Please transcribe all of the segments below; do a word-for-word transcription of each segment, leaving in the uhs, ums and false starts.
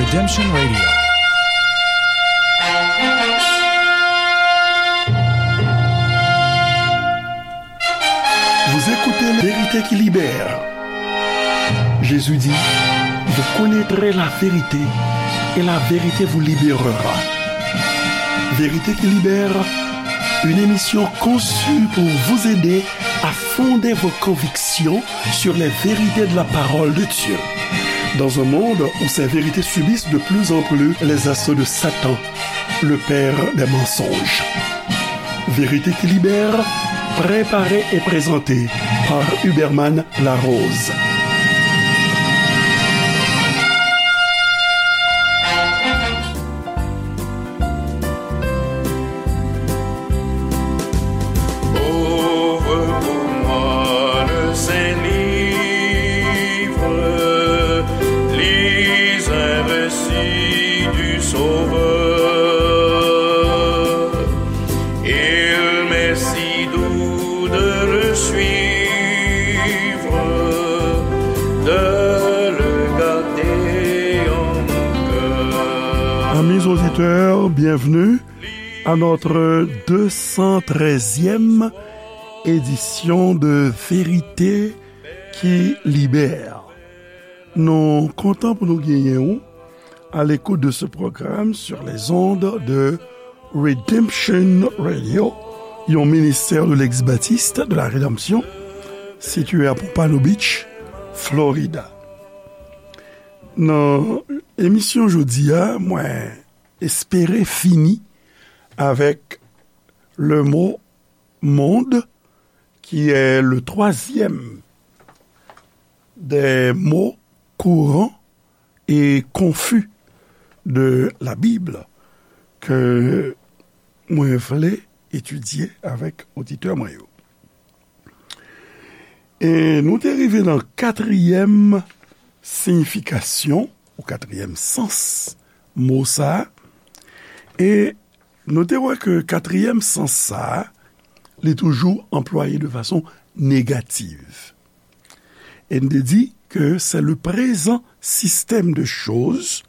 Redemption Radio. Vous écoutez Vérité qui libère. Jésus dit, vous connaîtrez la vérité et la vérité vous libérera. Vérité qui libère, une émission conçue pour vous aider à fonder vos convictions sur les vérités de la parole de Dieu. Dans un monde où ces vérités subissent de plus en plus les assauts de Satan, le père des mensonges. Vérité qui libère, préparée et présentée par Huberman Larose. Ouvre pour moi le saint livre, lis un récit du Sauveur. Il m'est si doux de le suivre, de le garder en mon cœur. Amis auditeurs, bienvenue à notre deux cent treizième édition de Vérité qui libère. Nou kontan pou nou genyen ou à l'écoute de ce programme sur les ondes de Redemption Radio, yon ministère de l'ex-baptiste de la rédemption, situé à Pompano Beach, Florida. Nan emisyon jodi a, mwen espere fini avec le mot monde, qui est le troisième des mots courants et confus de la Bible ke mwen vle etidye avèk oditè mwen yo. E nou te rive nan katriyèm siyifikasyon ou katriyèm sans mo sa a. E nou te wè ke katriyèm sans sa a, li toujou anplwaye de fason negatif. E n te di ke c'est le présent système de choses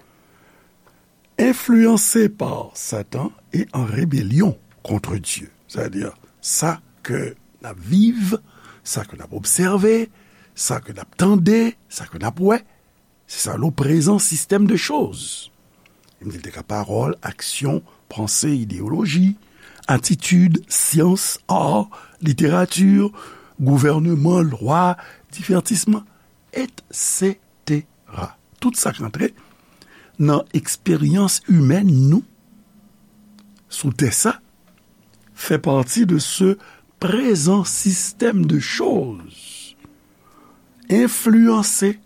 influencé par Satan et en rébellion contre Dieu. Sa vle di, sa ke n ap viv, sa ke n ap obsève, sa ke n ap tande, sa ke n ap wè, se sa le présent système de choses. Li di l te ka pawòl, aksyon, panse, ideyoloji, atitid, syans, ar, literati, gouvènman, lwa, divètisman, et cetera. Tout sa k antre nan eksperyans imèn nou sou tè sa fè pati de ce présent système de choses influencé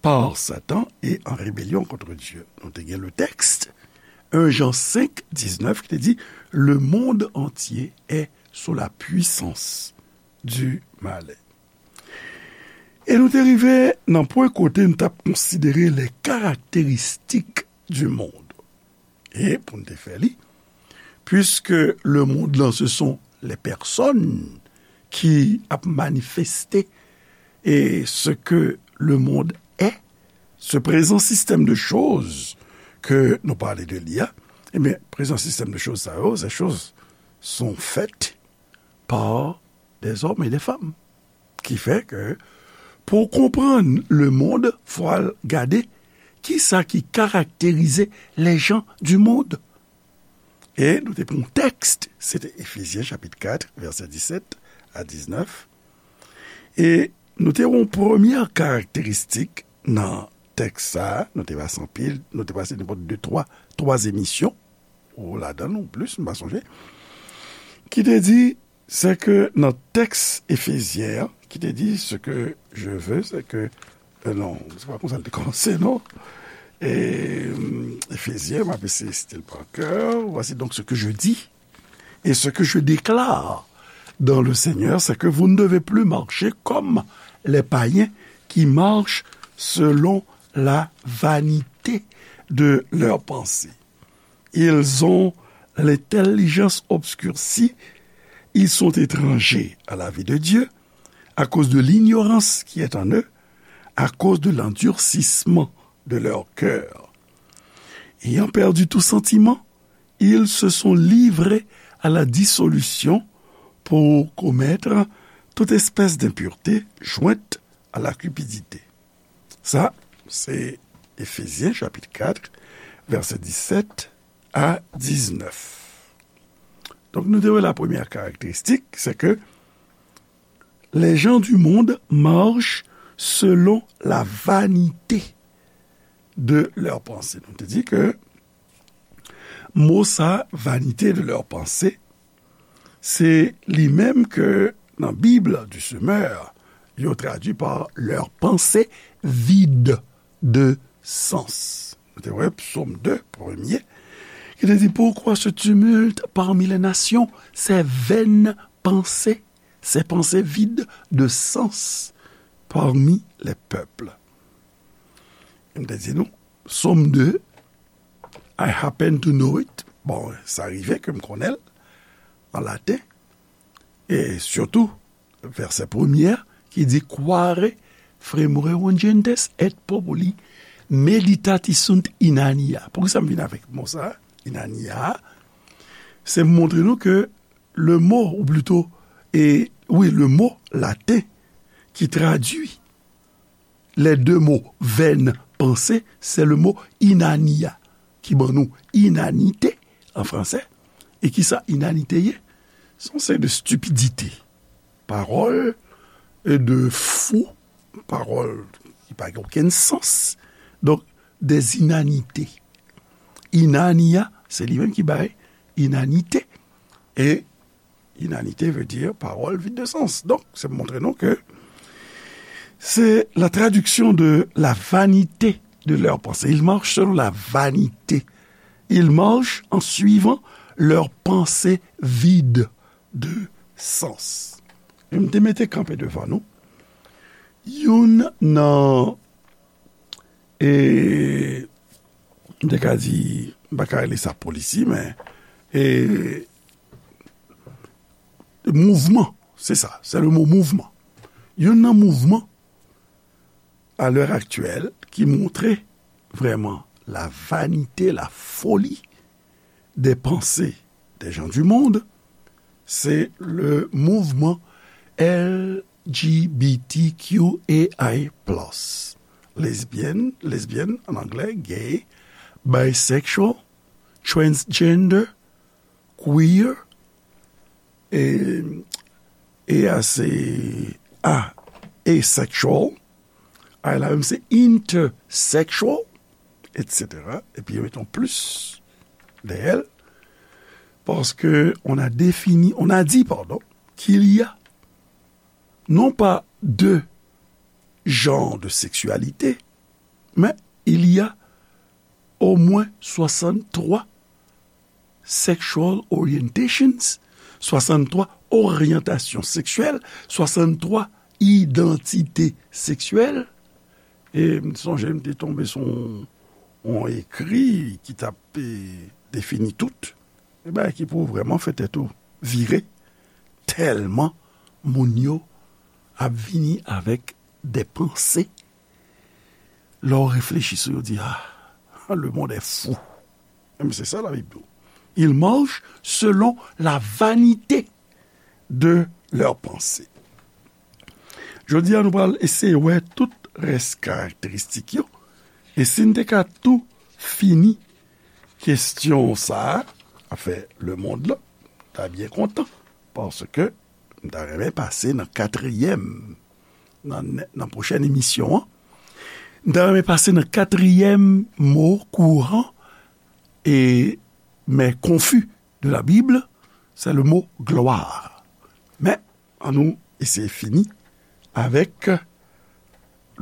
par Satan et en rébellion contre Dieu. Nou te gen le texte, un Jean cinq, dix-neuf, ki te di, le monde entier est sous la puissance du malin. E nou te rive nan pwen kote n t ap konsidere les caractéristiques du monde. E pou n te fè li, puisque le monde lan, ce sont les personnes qui ap manifesté et ce que le monde est, ce présent système de choses ke nou pale de li a, ebyen, prezan sistèm de choz sa yo, ces choses sont faites par des hommes et des femmes. Ki fè ke pou w konprann le monde, fò w al gade kisa ki karakterize les gens du monde. E nou te pran yon tèks, se te Efezyen chapit kat, vèsè disèt a diznèf. E nou te wè yon premyè karakteristik nan tèks sa a, nou te pase anpil, nou te pase nenpòt de, twa, twa emisyon, ou ladan l, ou plis, m pa sonje, ki te di, se ke nan tèks Efezyen an, ki te di, ce que je veux, c'est que, euh, non, se pa konsa l te kòmanse, non. E, Efezyen, m ap eseye site l pa kè. Voici donc ce que je dis et ce que je déclare dans le Seigneur, c'est que vous ne devez plus marcher comme les païens qui marchent selon la vanité de leurs pensées. Ils ont l'intelligence obscurcie, ils sont étrangers à la vie de Dieu, à cause de l'ignorance qui est en eux, à cause de l'endurcissement de leur cœur. Ayant perdu tout sentiment, ils se sont livrés à la dissolution pour commettre toute espèce d'impureté jointe à la cupidité. Sa, se Efezyen chapit kat, vèsè disèt a diznèf. Donk, nou te wè la premyè karakteristik, se ke les gens du monde marchent selon la vanité de leurs pensées. Nou te di ke mo sa, vanité de leurs pensées, se li menm ke nan Bib du Semeur, yo tradui pa leurs pensées vides de sens. Nou te wè Psaume deux, premye, ki te di, pourquoi ce tumulte parmi les nations, ces vaines pensées, ces pensées vides de sens parmi les peuples. M te di nou, Psaume deux, I happen to know it. Bon, sa rive ke m konnen l an laten. E sitou, vèsè premye ki di, quare fremurerant gentes et populi meditati sunt in annia. Poukisa m vin avèk mo sa, in annia? Se montre nou ke le mo, ou plito, e, wi, le mo laten ki tradui les deux mots vaines pensées, c'est le mot in annia, ki ban nou inanite an fransè. E ki sa inanite ye? Se yon seri de stipidite. Pawòl, e, de fou, pawòl ki pa gen okenn sans. Donk, des inanités. In annia, se li menm ki bay inanite. E inanite veut dire parole vide de sens. Donk, se montre nou ke c'est la traduction de la vanité de leurs pensées. Ils marchent selon la vanité. Ils marchent en suivant leurs pensées vides de sens. E m te mete kanpe devan nou youn nan, e, m te ka di, m pa ka rele sa polisi, men, e, mouvman, se sa, se le mo mouvman. Youn nan mouvman, à l'heure actuelle, ki montre vrèman la vanité, la folie des pensées des gens du monde, c'est le mouvement L G B T Q A I plus. Lesbienne, lesbienne en anglais, gay, bisexual, transgender, queer, e, e a se a, asexual, a la menm se intersexual, et cetera. Epi yo met yon plus dèyè l, parce que on a défini, on a dit, pardon, qu'il y a non pas deux genres de sexualité, mais il y a au moins soixante-trois sexual orientations, soixante-trois oryantasyon seksyèl, soixante-trois idantite seksyèl. E m sonje m te tonbe sou yon, yon ekri ki t ap, e, defini tout. E bagay ki pou vrèman fè tèt ou vire, tèlman moun yo ap vini avèk de panse. Lè w reflechi sou yo, di, ah, le monde est fou. Men se sa Labib di w. Ils marchent selon la vanité de leurs pensées. Jodi a, nou pral eseye wè tout rès karakteristik yo. E si n te ka tou fini kesyon sa a, afè lemonn lan, m ta byen kontan. Paske m ta renmen pase nan katriyèm, nan, nan pwochèn emisyon an. M ta renmen pase nan katriyèm mo kouran e, men konfi de la Bible, c'est le mot gloire. Men, annou eseye fini avèk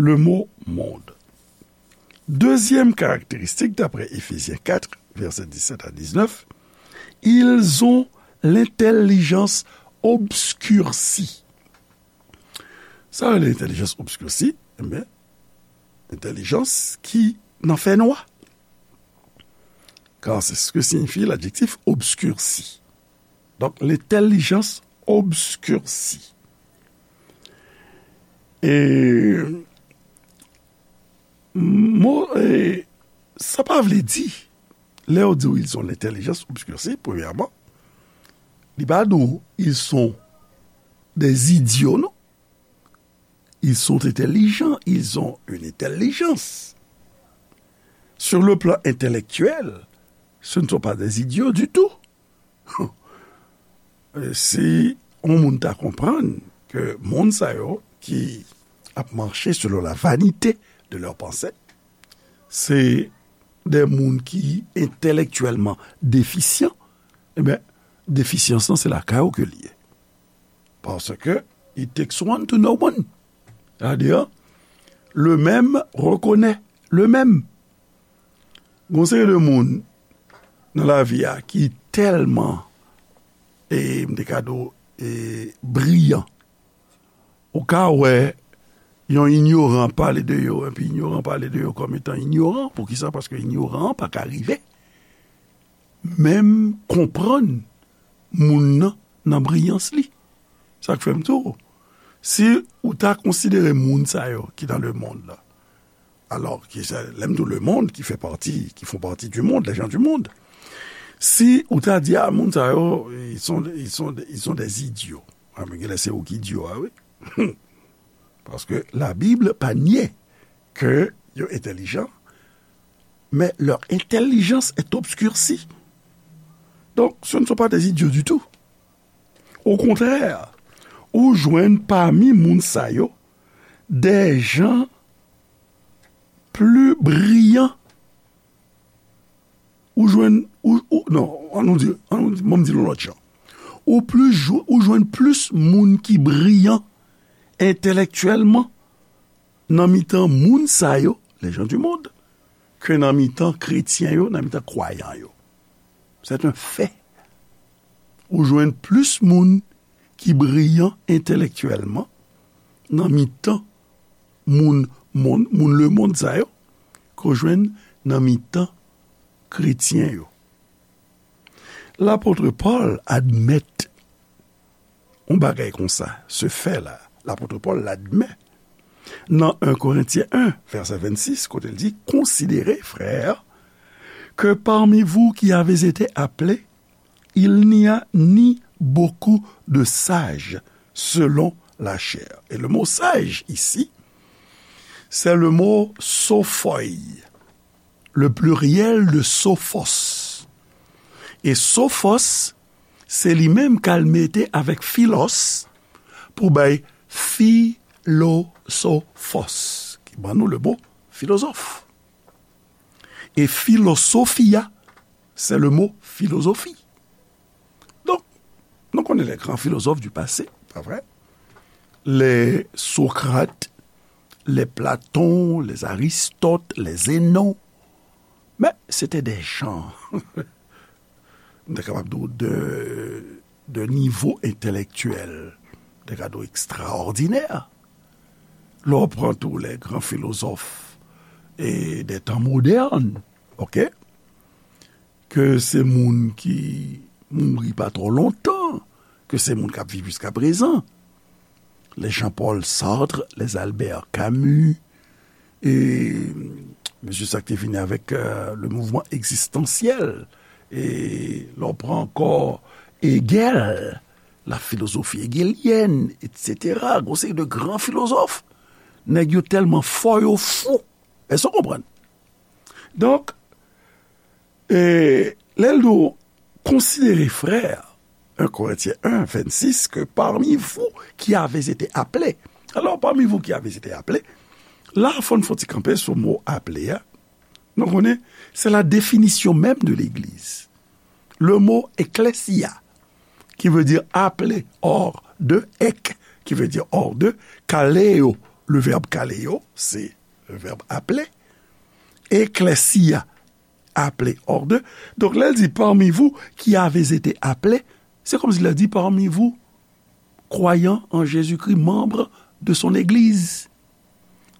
le mot monde. Dezyèm karakteristik, daprè Efezyen kat, vèsè disèt a diznèf, ils ont l'intelligence obscurcie. Sa rele entèlijans obskirsi, enben, entèlijans ki nan fènwa. Car c'est ce que signifie l'adjectif obscurci. Donk, lentellijans obskirsi. E, mo, e, sa pa vle di Lè yo di w ils ont l'intelligence obscurcie, premyèman, li pa di w ils sont des idiots, non. Ils sont intelligents, ils ont une intelligence. Sur le plan intellectuel, ce ne sont pas des idiots du tout. Si yon moun ta konprann ke moun sa yo ki ap mache selon la vanite de lè panse, se de moun ki entelektyèlman defisyan, ebyen, defisyans lan se lakay ou ke l ye. Paske it takes one to know one. Sètadi, le même reconnaît le même. Gon seri de moun nan lavi a ki tèlman, e m te ka di w, e briyan. Ou ka wè yon inyoran pale de yo, epi inyoran pale de yo kòm etan inyoran. Poukisa? Paske inyoran an pa ka rive menm konprann moun nan nan briyans li. Sa k fè m di w, si ou ta konsidere moun sa yo ki dans le monde la, alors, ki se, lè m di w le monde, qui fait partie, qui font partie du monde, les gens du monde, si ou ta di, a, moun sa yo, ils sont, ils sont, ils sont des idiots. A, men genlè se ou ki idyo a, wi. Paske la Bible pa nye ke yo entèlijan, mais leur intelligence est obscurcie. Donc, ce ne sont pas des idiots du tout. Au contraire, ou jwenn pami moun sa yo des gens plus brillants. Ou jwenn, ou, ou, non, an nou di, an nou di, ban m di l yon lòt jan. Ou plis jwe-, ou jwenn plis moun ki briyan entelektyèlman nan mitan moun sa yo, les gens du monde, ke nan mitan kretyen yo, nan mitan kwayan yo. C'est un fait. Ou jwenn plis moun ki briyan entelektyèlman nan mitan moun, moun, moun lemonn sa yo ke w jwenn nan mitan kretyen yo. Lapot Pòl admèt yon bagay konsa, se fè la, lapot Pòl l admèt nan en Korentyen en, vèsè vennsis, kote l di, considérez, frères, que parmi vous qui avez été appelés, il n'y a ni beaucoup de sages selon la chair. Et le mot sage ici, c'est le mot sophoi, le pluriel de sophos. E sophos, se li menm k al mete avèk philos pou bay philosophos, ki ban nou le mo filozòf. E philosophia, c'est le mot philosophie. Donk, nou konnen les grands philosophes du passé, pa vre? Les Socrates, les Platon, les Aristote, les Zénon. Men, se te de jan, m ta kapab di w, de, de nivo entelektyèl, m ta ka di w, ekstraòdinè. Lè w pran tou les grands philosophes e des temps modernes, oke? Ke se moun ki mouri pa twò lontan, ke se moun k ap viv jiskaprezan. Les Jean-Paul Sartre, les Albert Camus, e mesye sa k te vini avèk, euh, le mouvement existentiel, e lè w pran ankò Hegel, la philosophie hégélienne, et cetera. Gon seri de gran filozòf, nèg yo tèlman fò, yo fou. Èske w konprann? Donk, e lè l di w, considérez, frères, en Corinthiens un, vingt-six, que parmi vous qui avez été appelés. Alors, parmi vous qui avez été appelés, la, fò n fè yon ti kanpe sou mo aple a. Nou konnen, c'est la définition même de l'Église. Le mot ecclesia, qui veut dire appelé, hors de, ek, qui veut dire hors de, kaleo, le verbe kaleo, c'est le verbe appeler, ecclesia, appelé hors de. Donk, lè l di parmi vous qui avez été appelés, c'est comme si l di parmi vous, croyants en Jésus-Christ, membres de son Église.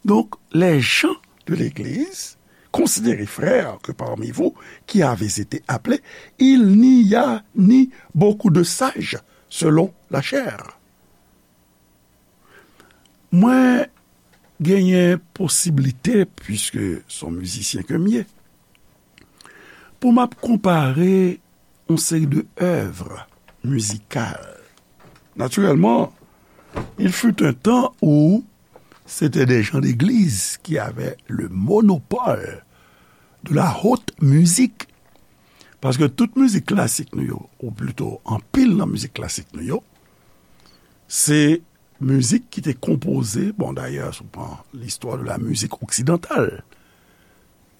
Donc, les gens de l'Église, considérez, frères, que parmi vous qui avez été appelés, il n'y a ni beaucoup de sages selon la chair. Mwen genyen posiblite, puiske se yon mizisyen ke m ye, pou m ap konpare yon seri de œuvres musicales. Naturellement, il fut un temps où c'était des gens d'église qui avaient le monopole de la haute musique. Paske tout mizik klasik nou yo, ou plito anpil nan mizik klasik nou yo, se mizik ki te konpoze, bon, dayè, si w pran l'histoire de la musique occidentale,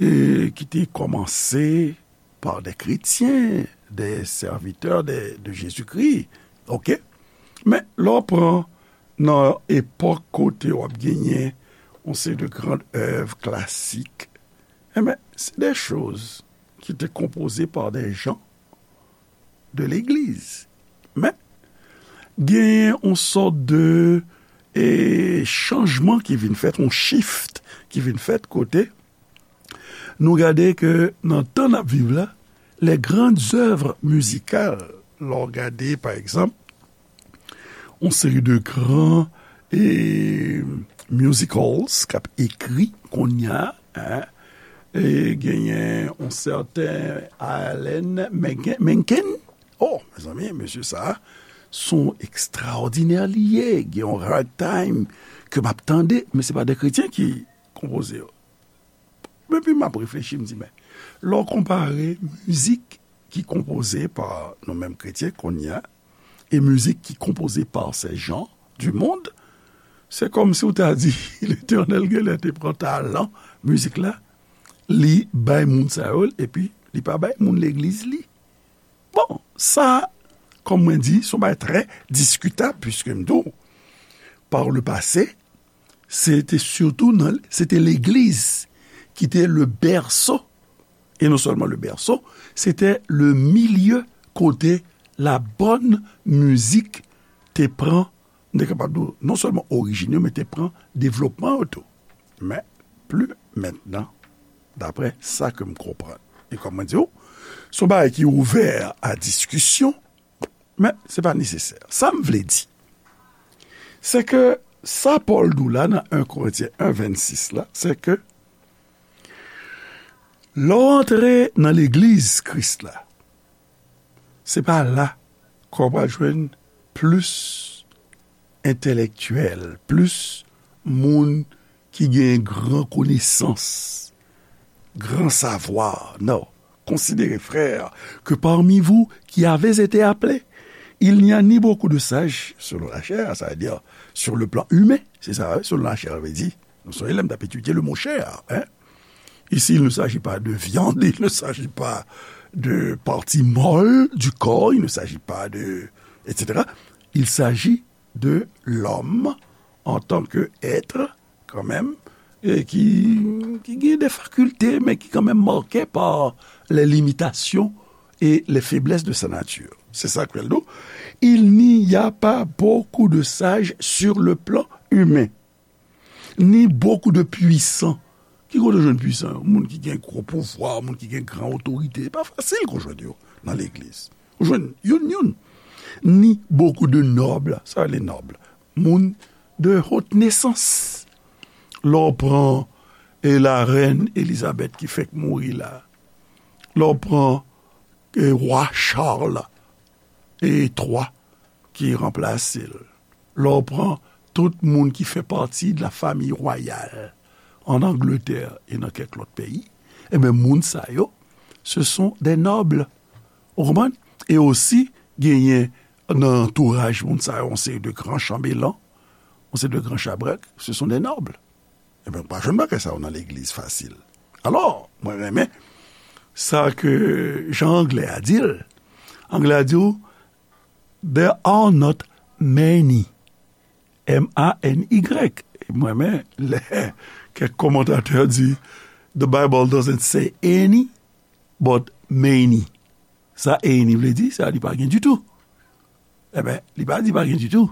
e ki te kòmanse par des chrétiens, des serviteurs de, de Jésus-Christ, oke? Men, lè w pran nan epòk kote w ap genyen yon seri de grandes œuvres classiques, enben, c'est des choses qui étaient composées par des gens de l'église. Men, genyen yon sòt de, e, chanjman ki vin fèt, yon shift ki vin fèt kote nou gade ke nan tan n ap viv la, les grandes œuvres musicales, lè w gade, pa egzanp, yon seri de gran, e, musicals k ap ekri kounye a, en, e genyen yon sèten Alan Menken, Menken. Oh, mezanmi, mesye sa a, se yon ekstraòdinè li ye. Gen yon ragtime ke m ap tande, men se pa de kretyen ki konpoze yo. Epi m ap reflechi, m di, men, lè w konpare mizik ki konpoze pa nou menm kretyen kounye a, e mizik ki konpoze pa ces gens du monde, se kòmsi w ta di Letènèl genlè te pran talan mizik la, li bay moun sa yo l, epi li pa bay moun legliz li. Bon, sa, kòm mwen di, se yon bagay trè diskitab, piske m di w, par le passé, se te sitou nan, se te legliz ki te le berceau, et non seulement le berceau, se te le milieu kote la bonne musique te pran, m te kapab di w, non sèlman orijin yo, men te pran devlopman yo tou. Men, pli mentnan, daprè sa ke m konprann. E kòm mwen di w, se yon bagay ki ouvè a diskisyon, men se pa nesesè. Sa m vle di, se ke sa Pòl di w la nan en Korentyen en vennsis la, se ke lè w antre nan legliz Kris la, se pa la ke w pral jwenn plis entèlektyèl, plis moun ki gen gran konesans, gran savwa. Non. Considérez, frères, que parmi vous qui avez été appelés, il n'y a ni beaucoup de sages selon la chair, sa vle di, sur le plan humain, se sa, wi, selon la chair, vle di, nou sonje lè m t ap etidye le mot chair, hein? Ici, il ne s'agit pas de viande, il ne s'agit pas de partie molle du corps, il ne s'agit pas de, et cetera. Il s'agit de l'homme en tant que être, kanmenm, e ki, ki gen de fakilte, men ki kanmenm marke pa les limitations et les faiblesses de sa nature. Se sa ke l di w. Il n'y a pas beaucoup de sages sur le plan humain, ni beaucoup de puissants. Ki kote w jwenn pwisan yo? Moun ki gen gwo pouvwa, moun ki gen gran otorite. E pa fasil ke w jwenn yo nan legliz. Ou jwenn youn youn. Ni beaucoup de nobles, sa les nobles. Moun de haute naissance. Lè w pran, e, la rèn Elizabèt ki fèk mouri la. Lè w pran, e, wa Charles e twa ki ranplase l. Lè w pran tout moun ki fè pati de la famille royale en Angleterre e nan kèk lòt peyi, enben, moun sa yo, ce sont des nobles. Ou konprann? E osi, genyen nan antouraj moun sa yo, yon seri de gran chanbelan, yon seri de gran chabrèk, ce sont des nobles. Enben, ou pa jwenn bagay sa yo nan legliz fasil. Alò, mwen renmen sa ke jan anglè a di l. Anglè a di w, there are not many. M A N Y. Mwen renmen lè kèk kòmantatè di, the Bible doesn't say any, but many. Sa any vle di, sa li pa gen ditou. Enben, li pa di pa gen ditou,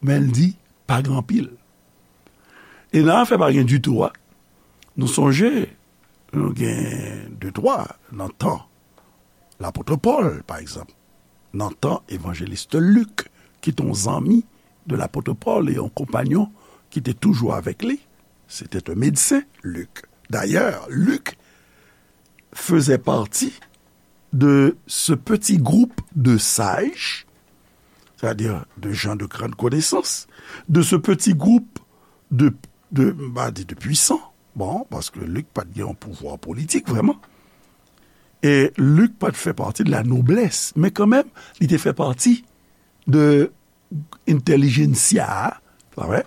men l di pa gen anpil. E nan afè pa gen ditou a, nou sonje, nou gen de twa nan tan lapot Pòl, pa egzanp, nan tan evanjelis Lik, ki te yon zanmi de lapot Pòl e yon konpanyon ki te toujou avèk li. C'était un médecin, Luc. D'ailleurs, Luc faisait partie de ce petit groupe de sages, c'est-à-dire de gens de grande connaissance, de ce petit groupe de, de, m pa di de puissants, bon, paske Lik pa t gen yon pouvwa politik vrèman, e Lik pa t fè pati de la noblès, men kanmenm, li te fè pati de intelligentsia, pa vre,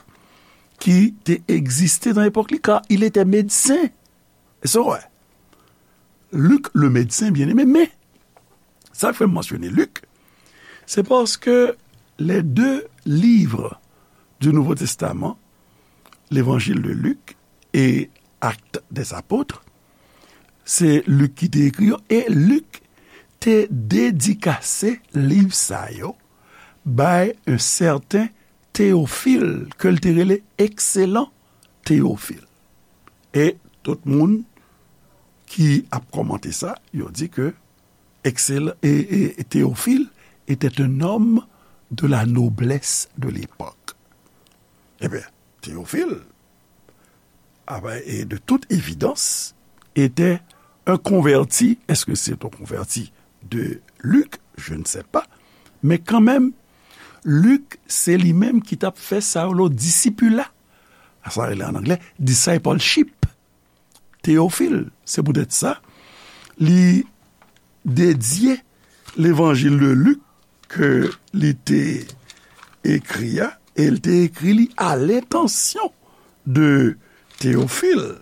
ki te egziste nan epòk li, car il était médecin. E sa w wè. Luc le médecin bien-aimé, men sa k fè m mansyone Lik, se paske les deux livres du Nouveau Testament, l'Évangile de Luc et Actes des Apôtres, se Lik ki te ekri yo, e Lik te dedikase liv sa yo bay un certain Théophile, ke l te rele Excellent Théophile. E tout moun ki ap kòmante sa, yo di ke Excellent, et, et, et Théophile était un homme de la noblesse de l'époque. Ebyen, Théophile, ah ben, et de toute évidence, était un converti. Est-ce que c'est un converti de Luc? Je ne sais pas. Men kanmenm, Lik, se li menm ki t ap fè sa yo lo disipula. Sa rele an anglè discipleship. Théophile, se poutèt sa, li dedye Levanjil de Lik ke li te ekri a, e l te ekri li à l'intention de Théophile.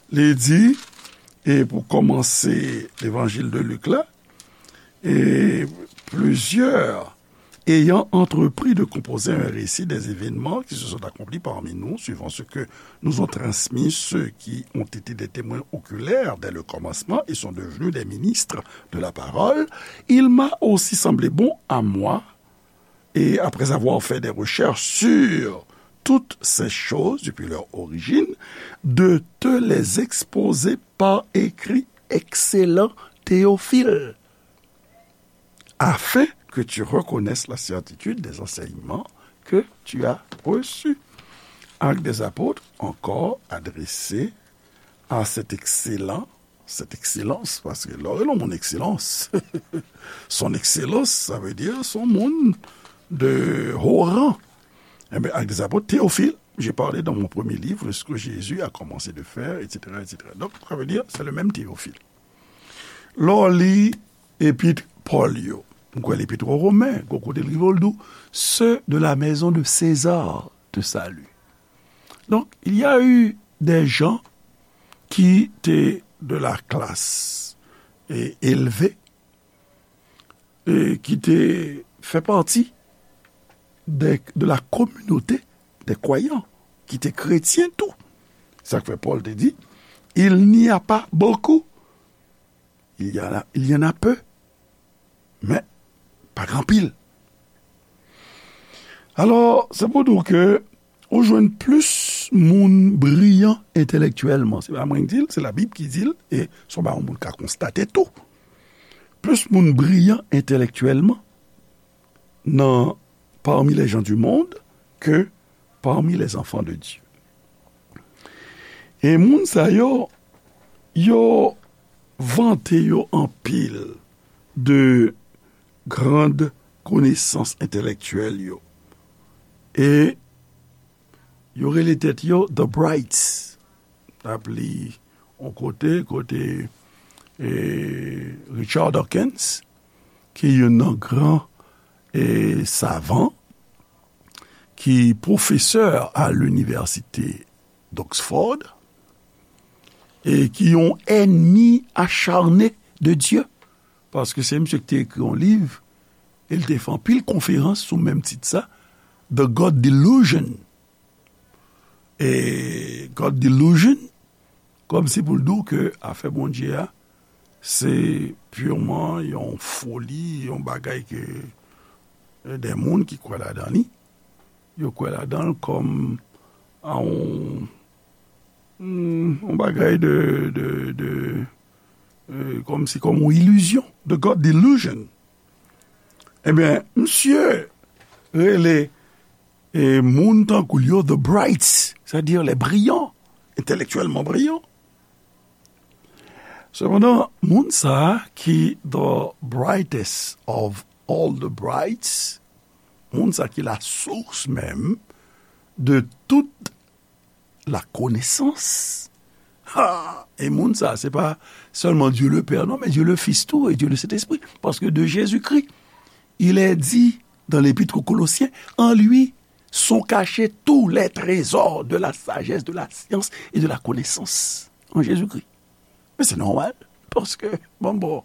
Li di, e pou kòmanse Levanjil de Lik la, et plusieurs ayant entrepris de composer un récit des événements qui se sont accomplis parmi nous, suivant ce que nous ont transmis ceux qui ont été des témoins oculaires dès le commencement et sont devenus des ministres de la parole, il m'a aussi semblé bon à moi, et après avoir fait des recherches sur toutes ces choses depuis leur origine, de te les exposer par écrit, excellent Théophile, afin que tu reconnaisses la certitude des enseignements que tu as reçus. Actes des Apôtres, encore adressé à cet excellent, cette excellence, paske lè w rele yon moun excellence, son excellence, ça veut dire son moun de haut rang. Eh bien, Actes des Apôtres, Théophile, j'ai parlé dans mon premier livre de ce que Jésus a commencé de faire, et cetera, et cetera. Donc, ça veut dire, c'est le même Théophile. Lè w li epit Pòl yo, m kwè lepit o Romen, gon kote l rive l di w, ceux de la maison de César te saluent. Donc, il y a eu des gens qui étaient de la classe et élevés, et qui étaient, fait partie des, de la communauté des croyants, qui étaient chrétiens tout. Sa k fè Pòl te di, il n'y a pas beaucoup, il y en a, il y en a peu, men pa gen anpil. Alò, se pou di w ke ou jwenn plis moun briyan entelektyèlman. Se pa mwen ki di l, se Labib ki di l, e se yon bagay yon moun ka konstate tou. Plis moun briyan entelektyèlman nan parmi les gens du monde que parmi les enfants de Dieu. E moun sa yo, yo vante yo anpil de grand konesans entelektyèl yo. E yo rele tèt yo The Brights. N ap li yon kote, kote, e, Richard Dawkins, ki youn nan gran, e, savan, ki pwofesè a linivèsite d'Oxford, e ki yon ènmi acharne de Dye, paske se misye ki te ekri yon liv, e l te fè anpil konferans sou menm tit sa, The God Delusion. E God Delusion, kòmsi pou l di w ke afè Bondye a, se piman yon foli, yon bagay ke, e, de moun ki kwè ladan li, yo kwè ladan l kòm a yon, hmm, yon bagay de, de, de, e, kòmsi kòm yon ilizyon, the God delusion. Ebyen, misye rele, e, moun tankou l yo the brights, c'est-à-dire les brillants, intellectuellement brillants. Sepandan, moun sa a ki the brightest of all the brights, moun sa ki la source menm de tout la connaissance. Ha! E moun sa, se pa sèlman Dieu le Père, non, mais Dieu le Fils tou, et Dieu le Saint-Esprit. Parce que de Jésus-Christ, il est dit dans l'Épître aux Colossiens, en lui sont cachés tous les trésors de la sagesse, de la science et de la connaissance. En Jésus-Christ. Men se nòmal, paske, bon, bon,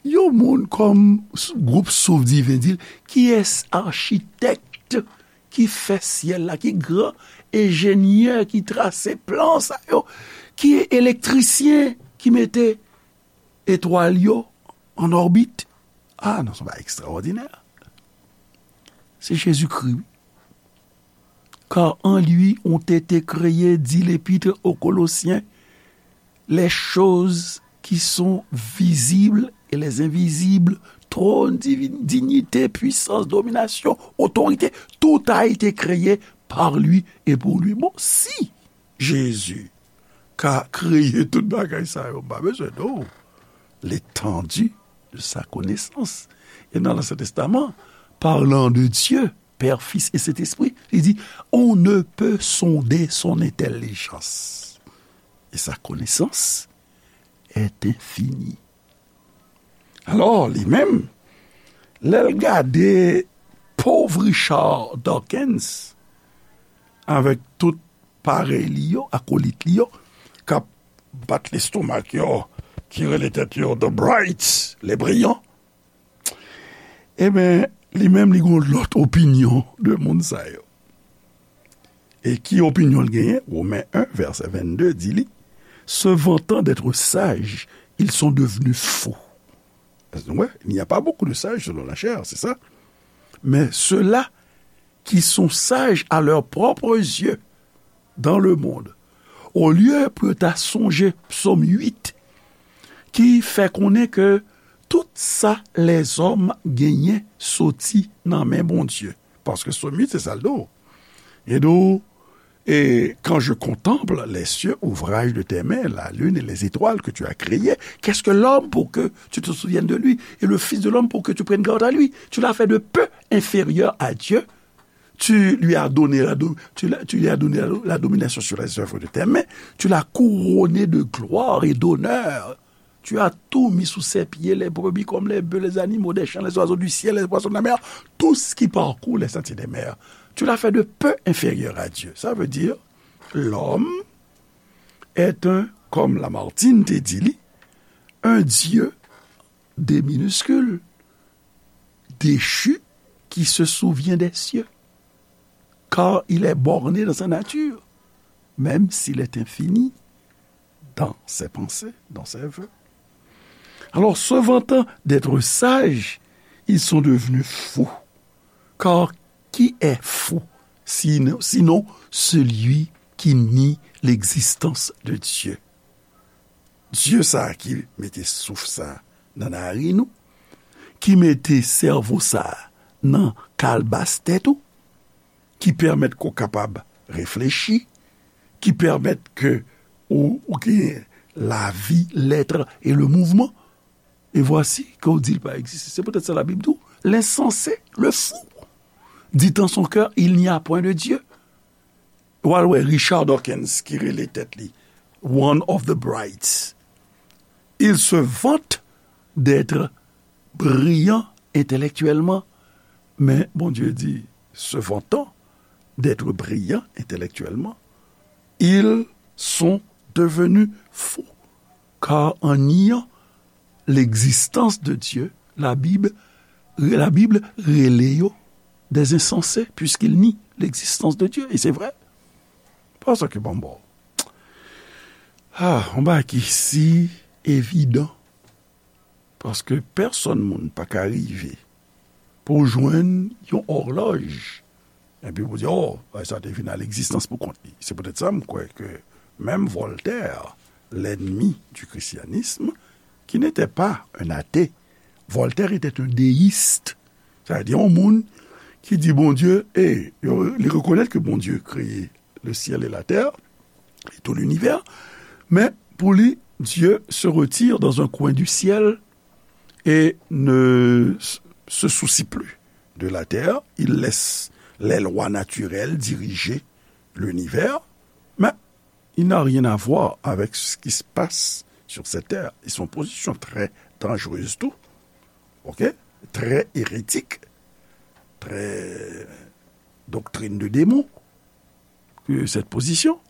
yon moun kòm s-, gwoup Souffle Divin di l, kiyès achitèk ki fè syèl la, ki gran enjenyè ki trase plan sa yo, ki elektrisyen ki mete etwal yo an òbit? Ah non, se yon bagay ekstraòdinè. Se Jezikri, wi. Car en lui ont été créées, dit l'Épître aux Colossiens, les choses qui sont visibles et les invisibles, trône, divi-, dignité, puissance, domination, autorité, tout a été créé par lui et pour lui. Bon, si Jezi ka kreye tout bagay sa yo, m pa bezwen non. L'étendue de sa connaissance. E nan Ansyen Testaman, parlant de Dieu, Père, Fils et Saint-Esprit, li di, on ne peut sonder son intelligence. Et sa connaissance est infinie. Alò, li menm, lè l gade pòv Richard Dawkins avèk tout parèy li yo, akolit li yo, k ap bat lestomak yo, ki rele tèt yo The Brights, les brillants, ebyen, li menm, li gen yon lòt opinyon de moun sa yo. E ki opinyon l genyen? Women en, vèsè vennde di li, se vantant d'être sages, ils sont devenus fous. Wè, il n'y a pas beaucoup de sages selon la chair, c'est ça. Mais ceux-là qui sont sages à leurs propres yeux dans le monde, olye pou yo ta sonje Psòm uit, ki fè konnen ke tout sa lèzòm genyen soti nan men Bondye. Paske Psòm uit, se sa l di w. Li di w, et quand je contemple les cieux, ouvrage de tes mains, la lune et les étoiles que tu as créées, qu'est-ce que l'homme pour que tu te souviennes de lui, et le fils de l'homme pour que tu prennes garde à lui? Tu l'as fait de peu inférieur à Dieu. Tu lui as donné la do-, tu l'as, tu lui as donné la, la domination sur les œuvres de tes mains. Tu l'as couronné de gloire et d'honneur. Tu as tout mis sous ses pieds, les brebis comme les bœufs, les animaux des champs, les oiseaux du ciel, les poissons de la mer, tout ce qui parcourt les sentiers des mers. Tu l'as fait de peu inférieur à Dieu. Ça veut dire, l'homme est un, comme Lamartine te dit, li, un Dieu, D minuscule, déchu, qui se souvient des cieux, car il est borné dans sa nature, même s'il est infini dans ses pensées, dans ses vœux. Alors, se vantant d'être sages, ils sont devenus fous. Car qui est fou, sinon, sinon celui qui nie l'existence de Dieu? Dye sa a ki mete souf sa a nan naren ou, ki mete sèvo sa a nan kalbas tèt ou, ki pèmèt ke w kapab reflechi, ki pèmèt ke ou, ou gen lavi, l'être et le mouvement. Et voici que w di l pa egziste. Se poutèt sa Labib di w, l'insensé, le fou, dit en son cœur, il n'y a point de Dieu. W al wè Richard Dawkins ki rele tèt li one of the brights. Il se vante d'être brillant intellectuellement, mais Bondye di, se vantant d'être brillant intellectuellement, ils sont devenus fous, car en niant l'existence de Dieu, la Bible, la Bible rele yo des insensés, puisqu'ils nient l'existence de Dieu. Et c'est vrai. Paske, bon, bon. Ah, yon bagay ki si evidan. Paske pèsonn moun pa ka rive pou jwenn yon òlòj. Epi pou di, oh, bagay sa te vin a legzistans pou kont li. Se poutèt sa m kwè ke menm Voltaire, l'ennemi du christianisme, qui n'était pas un athée, Voltaire était un déiste. Sa vle di yon moun ki di Bondye, e yo, li rekonèt ke Bondye kreye le ciel et la terre, et tout l'univers, men pou li, Dieu se retire dans un coin du ciel et ne s- se soucie plus de la terre. Il laisse les lois naturelles diriger l'univers, mais il n'a rien à voir avec ce qui se passe sur cette terre. Ils sont en position très dangereuse, tout. OK? Très hérétique, très doctrine de démon que cette position.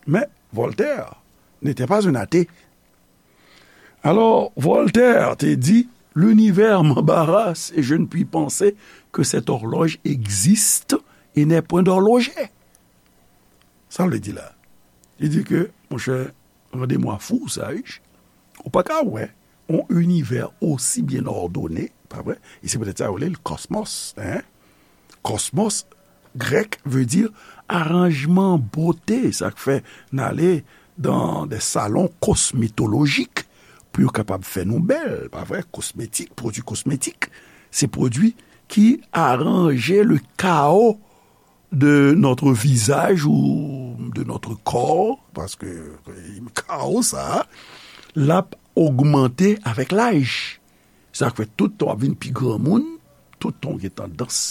Mais Voltaire n'était pas un athée. Alors, Voltaire te di, l'univers m'embarrasse et je ne puis penser que cette horloge existe et n'est point d'horloger. Sa vle di la? Li di ke, monchè, rendez-moi fou, sage. Ou pa ka wè yon univers aussi bien ordonné, pa vre? E se poutèt sa yo rele l kosmos, hein? Kosmos, grèk, vle di aranjman, bote. Sa k fè n ale dans des salons cosmétologiques pou yo kapab fè nou bèl, pa vre? Kosmetik, pwodui kosmetik, se pwodui ki aranje le chaos de notre visage ou de notre corps, paske kawo sa a, l ap ogmante avèk laj. Sa k fè tout tan w ap vin pi granmoun, tout tan w gen tandans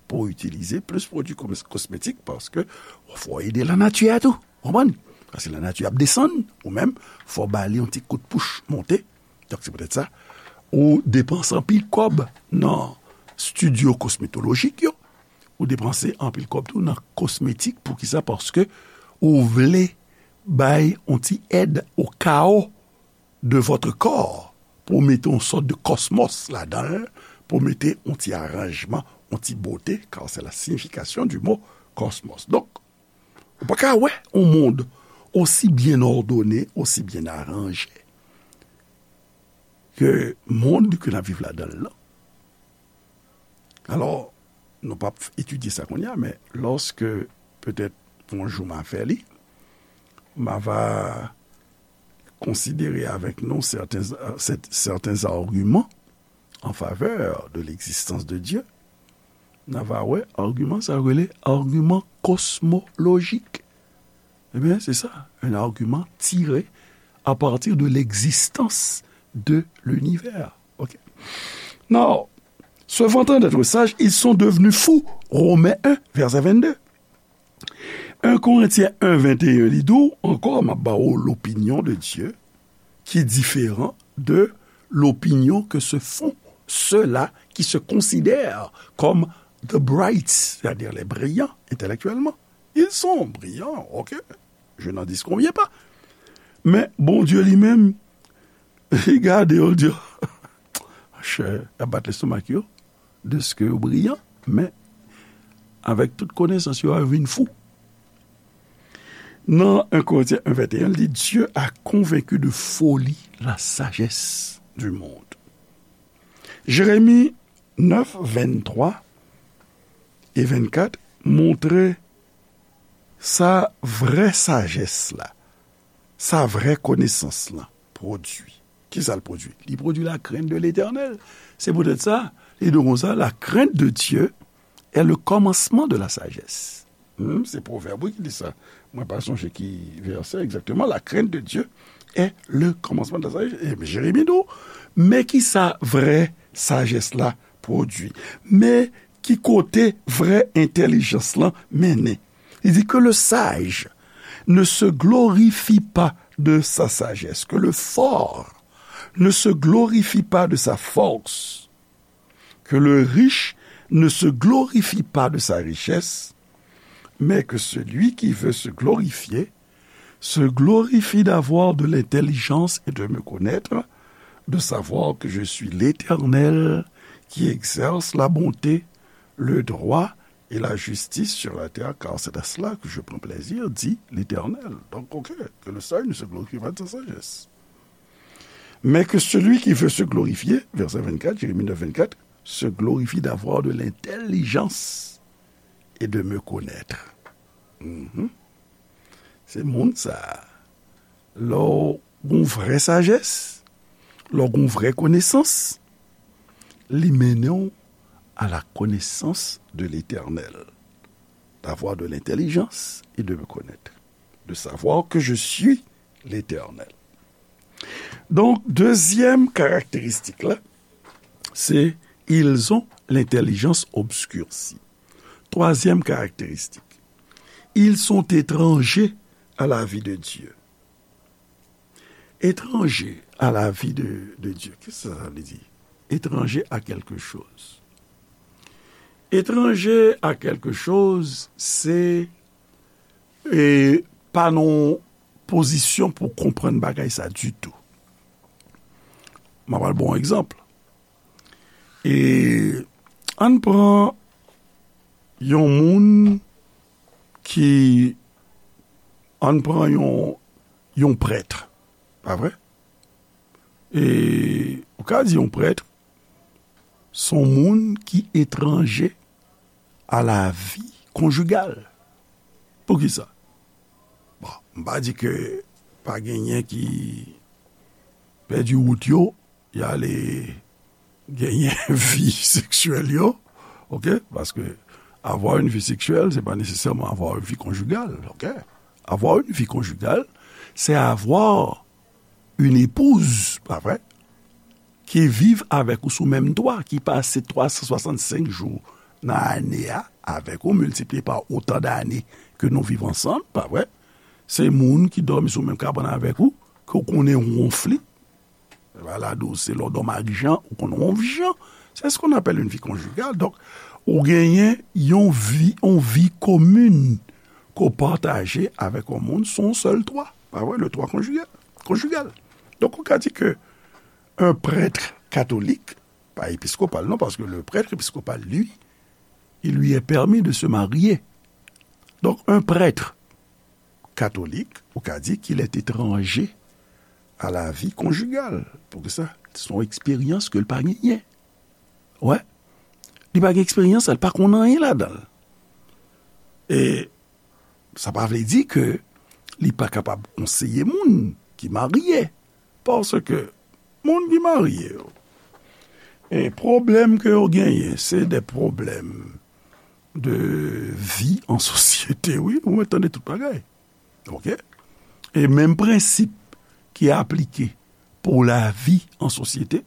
pou w itilize plis pwodui kos- kosmetik, paske fò w ede lanati a tou. Konprann? Paske lanati ap desann, ou menm, fò w ba li yon ti kout pouch monte. Donk, se poutèt sa, ou depanse anpil kòb nan estidyo kosmetolojik yo, ou depanse anpil kòb tou nan kosmetik. Poukisa? Paske ou vle bay yon ti èd o kawo de votre corps, pou w mete yon sòt de kosmos ladan l, pou w mete yon ti aranjman, yon ti bote, car c'est la signification du mot cosmos. Donk, ou pa ka wè yon mond aussi bien ordonné, aussi bien arrangé ke mond ke n ap viv ladan l lan. Alò, nou p ap etidye sa kounye a, men lòske petèt yon jou m a fè li, m a va konsidere avèk nou sèten, sèt- sèten agiman an favè de legzistans de Dye. N a va wè agiman sa yo rele agiman kosmolojik. Ebyen, se sa, un argument tiré à partir de l'existence de l'univers. OK? Now, se vantant d'être sages, ils sont devenus fous. Romains un, verset vingt-deux. Un Corinthiens un, vingt et un, li di w ankò, m ap ba w l'opinion de Dieu qui est différent de l'opinion que se font ceux-là qui se considèrent comme the bright, c'est-à-dire les brillants intellectuellement. Ils sont brillants, OK. Je n'en disconviens pas. Men Bondye li menm, li gade yo, l di, chè, y ap bat lestomak yo, deske yo briyan, men avèk tout konesans yo a, yo vin fou. Nan un Corinthiens un, vingt et un, li di, Dieu a convaincu de folie la sagesse du monde. Jérémie neuf, vingt-trois et vingt-quatre montre sa vrè sajès la, sa vrè konesans lan pwodui. Kisa l pwodui? Li pwodui la crainte de l'Éternel. Se poutèt sa, li di konsa, la crainte de Dieu est le commencement de la sagesse. Hmm, se Pwovèb wi ki di sa. Mwen pa sonje ki vèsè egzakteman. La crainte de Dieu est le commencement de la sagesse. E Jeremi di w, men kisa vrè sajès la pwodui. Men ki kote vrè entèlijans lan mennen. Li di, que le sage ne se glorifie pas de sa sagesse, que le fort ne se glorifie pas de sa force, que le riche ne se glorifie pas de sa richesse, mais que celui qui veut se glorifier se glorifie d'avoir de l'intelligence et de me connaître, de savoir que je suis l'Éternel qui exerce la bonté, le droit et la justice sur la terre, car c'est à cela que je prends plaisir, dit l'Éternel. Donc, OK, que le sage ne se glorifie pas de sa sagesse. Mais que celui qui veut se glorifier, verset vingt-quatre, Jérémie neuf, vingt-quatre, se glorifie d'avoir de l'intelligence et de me connaître. Mhm. Se moun sa a. Lè w gon vrè sajès, lè w gon vrè konesans, li mennen w à la connaissance de l'Éternel, d'avoir de l'intelligence et de me connaître, de savoir que je suis l'Éternel. Donk, dezyèm karakteristik la, se ils ont l'intelligence obscurcie. Twazyèm karakteristik, ils sont étrangers à la vie de Dieu. Étrangers à la vie de, de Dieu. Kisa sa vle di? Étranger à quelque chose. Étranger à quelque chose, se e pa nan yon pozisyon pou konprann bagay sa ditou. M ap al ba w yon egzanp. E ann pran yon moun ki, ann pran yon, yon prèt, pa vre? E ou ka di yon prèt, se yon moun ki etranje a la vi konjigal. Poukisa? Bon, m pa di ke pa genyen ki pèdi wout yo, y ale genyen vi seksyèl yo, oke? Paske avoir une vie sexuelle, c'est pas nécessairement avoir une vie conjugale, oke? Avoir une vie conjugale, c'est avoir une épouse, pa vre? Ki viv avèk ou sou menm twa, ki pase twa san swasannsenk jou nan ane a avèk ou, miltipliye pa otan dane ke nou viv ansanm, pa vre? Se moun ki dòmi sou menm kabann avèk ou, ke w konnen wonf li. Balado, se lè w dòmi ak Jan, ou konn wonf Jan. C'est ce qu'on appelle une vie conjugale. Donk, ou genyen yon vi, yon vi komin ke w pataje avèk yon moun sou yon sèl twa. Pa vre? Le twa konjige-, konjigal. Donk, ou ka di ke un prêtre catholique, pas épiscopal, non, parce que le prêtre épiscopal, lui, il lui est permis de se marier. Donc, un prêtre catholique, ou ka di qu'il est étranger à la vie conjugale. Poukisa? Se yon eksperyans ke l pa genyen. Wè. Li pa gen eksperyans, li pa konn anyen ladan l. E sa pa vle di ke li pa kapab konseye moun ki marye. Paske moun ki marye yo, e pwoblèm ke yo genyen, se de pwoblèm de vi an sosyete, wi. Ou mèt tande tout bagay. Oke? E menm prensip ki aplike pou lavi an sosyete,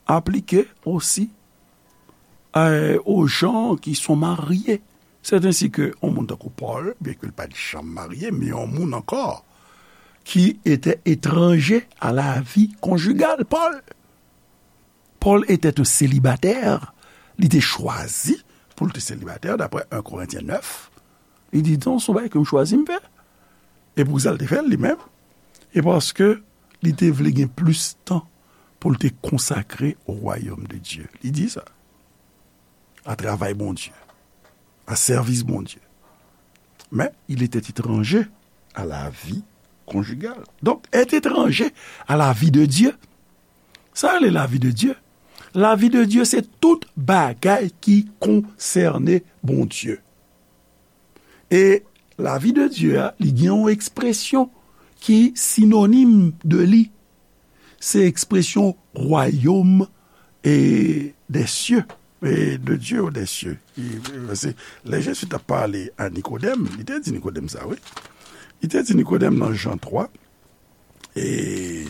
aplike osi, e, aux gens qui sont mariés. C'est ainsi que yon moun tankou Pòl, byenke l pa t janm marye, men yon moun ankò, qui était étranger à la vie conjugale. Paul, Paul était un célibataire. Li te chwazi pou l te selibatè, daprè en Korentyen nèf. Li di, "Non, se yon bagay ke m chwazi m fè." E poukisa l te fè l, li menm? E paske li te vle gen plis tan pou l te konsakre au royaume de Dieu. Li di sa. A travay Bondye. A sèvis Bondye. Mais il était étranger à la vie conjugale. Donc, être étranger à la vie de Dieu, sa rele la vie de Dieu. La vie de Dieu, se tout bagay ki konsène Bondye. E la vie de Dieu a, li gen yon ekspresyon ki sinonim de li. Se ekspresyon royaume e des cieux, e de Dieu ou des cieux. E, e, se, lè Jezi t ap pale a Nikodèm, li te di Nikodèm sa, wi. Li te di Nikodèm nan Jan twa, et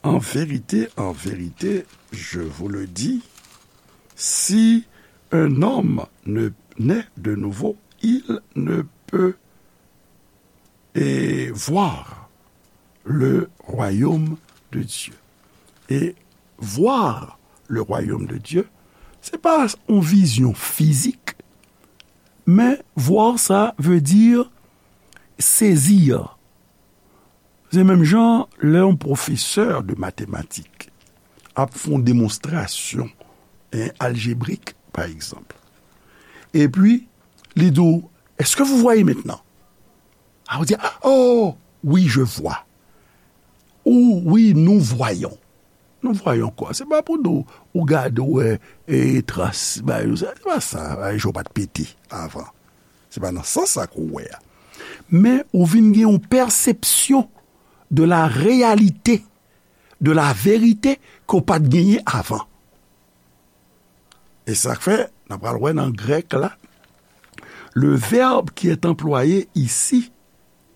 en vérité, en vérité, je vous le dis, si un homme ne naît de nouveau, il ne peut et voir le royaume de Dieu. Et voir le royaume de Dieu, se pa yon vizyon fizik, men voir sa vle di sezi. Se menm jan lè yon pwofesè de matematik ap fè yon demonstrasyon, en, aljebrik, pa egzanp. Epi, li di w, "Est-ce que vous voyez maintenant?" A, ou di, "Oh, oui, je vois." Ou, "Oui, nous voyons." Nous voyons quoi? Se pa pou di w, ou gade, ou wè, e, tras, bagay, se pa sa, bagay, je w pa t pete avan. Se pa nan sans sa ke w wè a. Men ou vin gen yon pèsepsyon de la réalité, de la vérité ke w pa t genyen avan. E sa k fè, n ap pral wè nan grèk la, le verbe qui est employé ici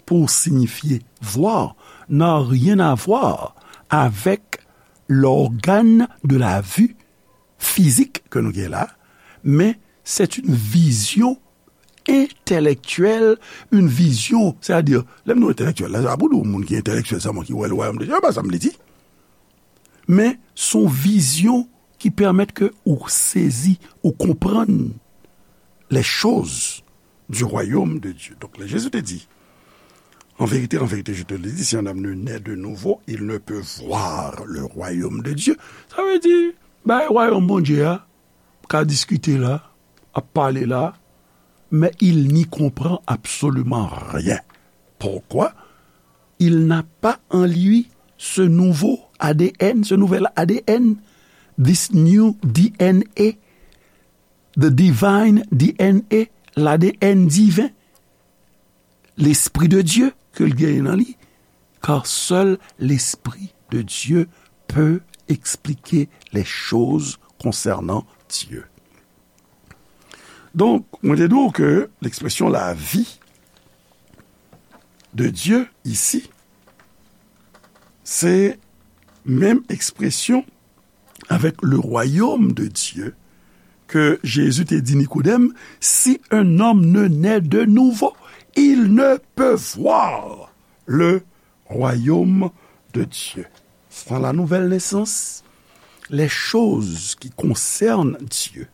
pour signifier voir n'a rien à voir avec l'organe de la vue physique ke nou gen la, men c'est une vision intellectuelle, une vision, c'est-à-dire, lè m di entèlektyèl la, se pa pou di moun ki entèlektyèl sèlman ki wè le royaume de Dieu, se pa sa m vle di. Men, se yon vizyon ki pèmèt ke ou sezi, ou konprann les choses du royaume de Dieu. Donk, lè Jezi te di, en vérité, en vérité, je te le dis, si un homme ne naît de nouveau, il ne peut voir le royaume de Dieu. Sa vle di, bay wayòm Bondye a, ka diskite la, ap pale la, mais il n'y comprend absolument rien. Pourquoi? Il n'a pas en lui ce nouveau A D N, ce nouvel A D N, this new D N A, the divine D N A, l'A D N divin, l'Esprit de Dieu ke l genyen nan li, car seul l'Esprit de Dieu peut expliquer les choses concernant Dieu. Donk, mwen te di w ke l'expression la vie de Dieu ici, se menm ekspresyon avec le royaume de Dieu ke Jezi te di Nikodèm, si un homme ne naît de nouveau, il ne peut voir le royaume de Dieu. Sans la nouvelle naissance, les choses qui concernent Dieu,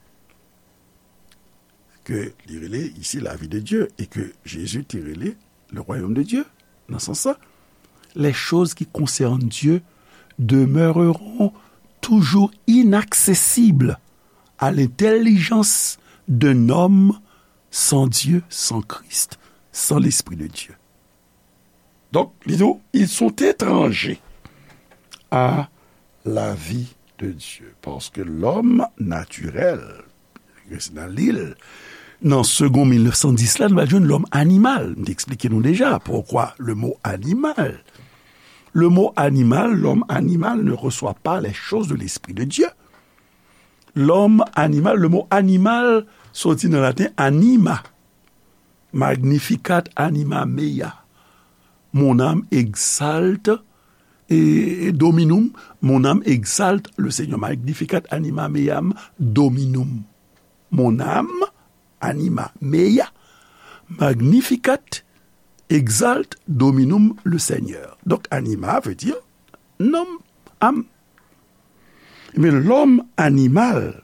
ke li rele ici la vie de Dieu, e ke Jezi te rele le royaume de Dieu, nan sans sa, les choses qui concernent Dieu demeureront toujours inaccessibles à l'intelligence d'un homme sans Dieu, sans Christ, sans l'Esprit de Dieu. Donk, li di w, ils sont étrangers à la vie de Dieu. Parce que l'homme naturel, nan Lil, nan Segond mil nèf san dis la, nou va jwenn lòm animal. M te eksplike nou deja poukwa le mot animal. Le mot animal, l'homme animal ne reçoit pas les choses de l'Esprit de Dieu. L'homme animal, le mot animal soti nan laten anima, magnificat anima mea. Mon âme exalte et dominum, mon âme exalte le Seigneur. Magnificat anima meam dominum. Mon âme anima mea, magnificat, exalte dominum le Seigneur. Donk, anima veut dire nanm, âme. Mais l'homme animal,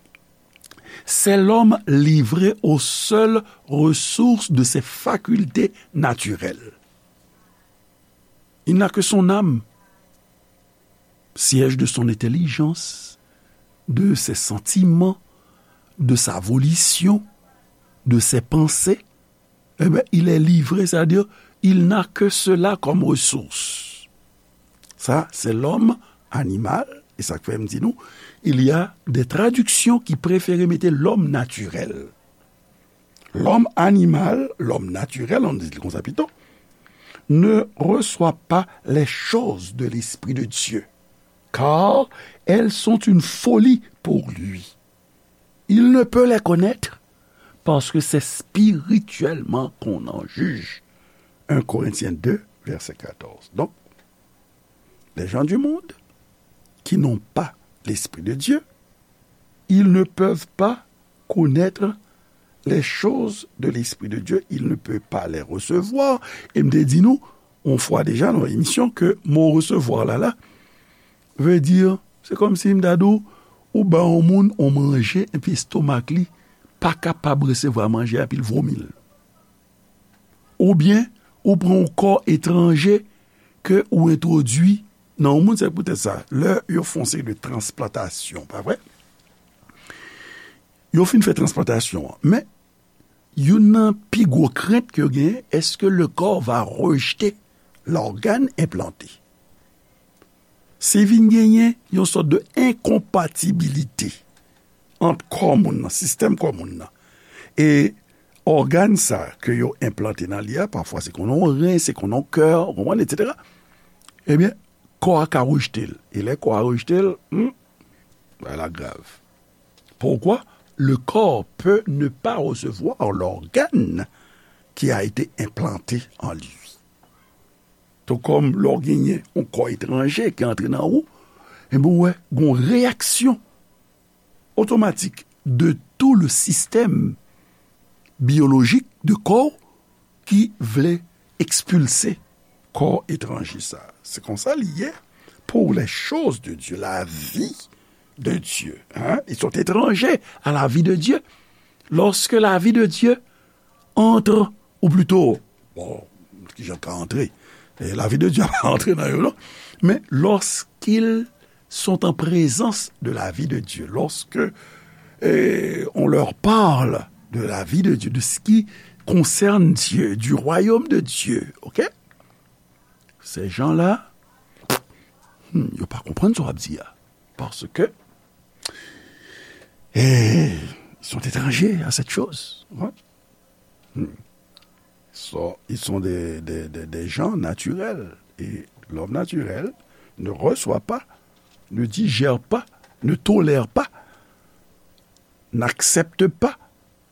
c'est l'homme livré aux seules ressources de ses facultés naturelles. Il n'a que son âme, siège de son intelligence, de ses sentiments, de sa volition, de ses pensées. Eh bien, il est livré, c'est-à-dire, il n'a que cela comme ressource. Ça, c'est l'homme animal, et ça fait me dire nous, il y a des traductions qui préfèrent mettre l'homme naturel. L'homme animal, l'homme naturel, on dit comme ça plutôt, ne reçoit pas les choses de l'Esprit de Dieu, car elles sont une folie pour lui. Il ne peut les connaître parce que c'est spirituellement qu'on en juge. Un Corinthiens deux, verset quatorze. Donc, les gens du monde qui n'ont pas l'Esprit de Dieu, ils ne peuvent pas connaître les choses de l'Esprit de Dieu, il ne peut pas les recevoir. E m te di nou, yon fwa deja nan emisyon, ke mo resevwa la, la, vle di, se kòmsi m ta di w, ou ba yon moun yon manje, epi estomak li pa kapab resevwa manje a, epi l vomi l. Oubyen, ou pran yon kò etranje ke ou entwodui nan yon moun, se poutèt sa, lè yo fè yon seri de transplantasyon, pa vre? Yo fin fè transplantasyon an, men youn nan pi gwo krent ke yo genyen, est-ce que le corps va rejeter l'organe implanté? Si vin genyen yon sòt de enkonpatibilite ant kò moun nan, sistèm kò moun nan, e ògàn sa ke yo enplante nan li a, pafwa se konn yon ren, se konn yon kè, ou konprann, etsetera. Ebyen, kò a ka rejte l. E lè kò a rejte l, hmm, bagay la grav. Pourquoi? Le corps peut ne pas recevoir l'organe qui a été implanté en lui. Tou kòm lè w genyen yon kò etranje ki antre nan ou, enben, ou wè, gen yon reyaksyon otomatik de tout le système biologique de kò w ki vle ekspilse kò etranje sa. Se konsa li ye pour les choses de Dieu, la vie de Dieu. Hein? Ils sont étrangers à la vie de Dieu. Lorsque la vie de Dieu entre, ou plutôt, bon, kijan ka antre? E lavi de Dye pa antre nan yo, non. Men, lorsqu'ils sont en présence de la vie de Dieu, lorsque eh, on leur parle de la vie de Dieu, de ce qui concerne Dieu, du royaume de Dieu, ok? Ces gens-là, hmm, yo pa konprann sa w ap di a. Parce que eh, ils sont étrangers à cette chose. Ouais. Hmm. So, ils sont des, des, des, des gens naturels. Et l'homme naturel ne reçoit pas, ne digère pas, ne tolère pas, n'accepte pas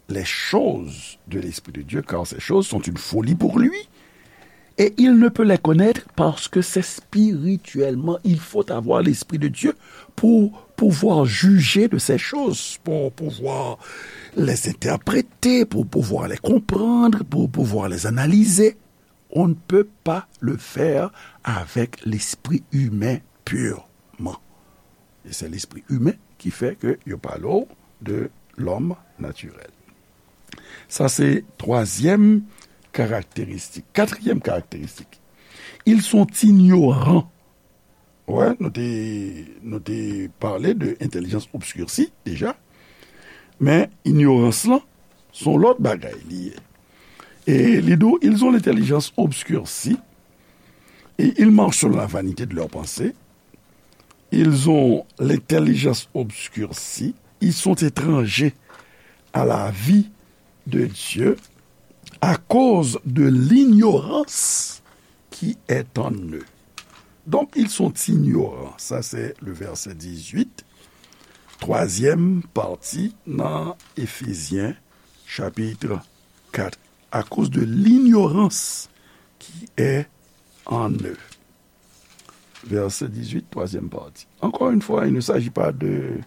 les choses de l'Esprit de Dieu, car ces choses sont une folie pour lui. Et il ne peut les connaître parce que c'est spirituellement. Il faut avoir l'Esprit de Dieu pour pouvoir juger de ces choses, pour pouvoir les interpréter, pour pouvoir les comprendre, pour pouvoir les analyser. On ne peut pas le faire avec l'esprit humain purement. Et c'est l'esprit humain qui fait que yo pale de l'homme naturel. Sa se twazyèm karakteristik. Katriyèm karakteristik. Ils sont ignorants. Wè, nou te, nou te pale de entèlijans obskirsi deja. Men, ignorans lan, se yon lòt bagay li ye. E li di w, ils ont l'intelligence obscurcie, et ils marchent selon la vanité de leurs pensées. Ils ont l'intelligence obscurcie, ils sont étrangers à la vie de Dieu à cause de l'ignorance qui est en eux. Donc, ils sont ignorants. Ça, c'est le verset dix-huit, troisième partie dans Éphésiens chapitre quatre. À cause de l'ignorance qui est en eux. Verset dix-huit, troisième partie. Encore une fois, il ne s'agit pas de,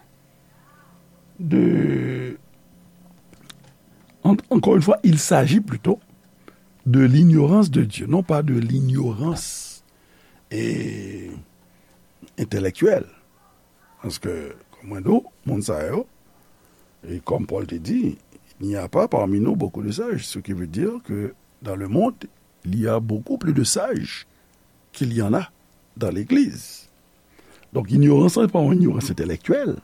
de, en- encore une fois, il s'agit plutôt de l'ignorance de Dieu, non pas de l'ignorance, eh, intellectuelle. Paske, kòm mwen di w, moun sa yo, e kòm Pòl te di, il n'y a pas parmi nous beaucoup de sages, ce qui veut dire que dans le monde, il y a beaucoup plus de sages qu'il y en a dans l'Église. Donk, ignorans lan, se pa yon ignorans entelektyèl.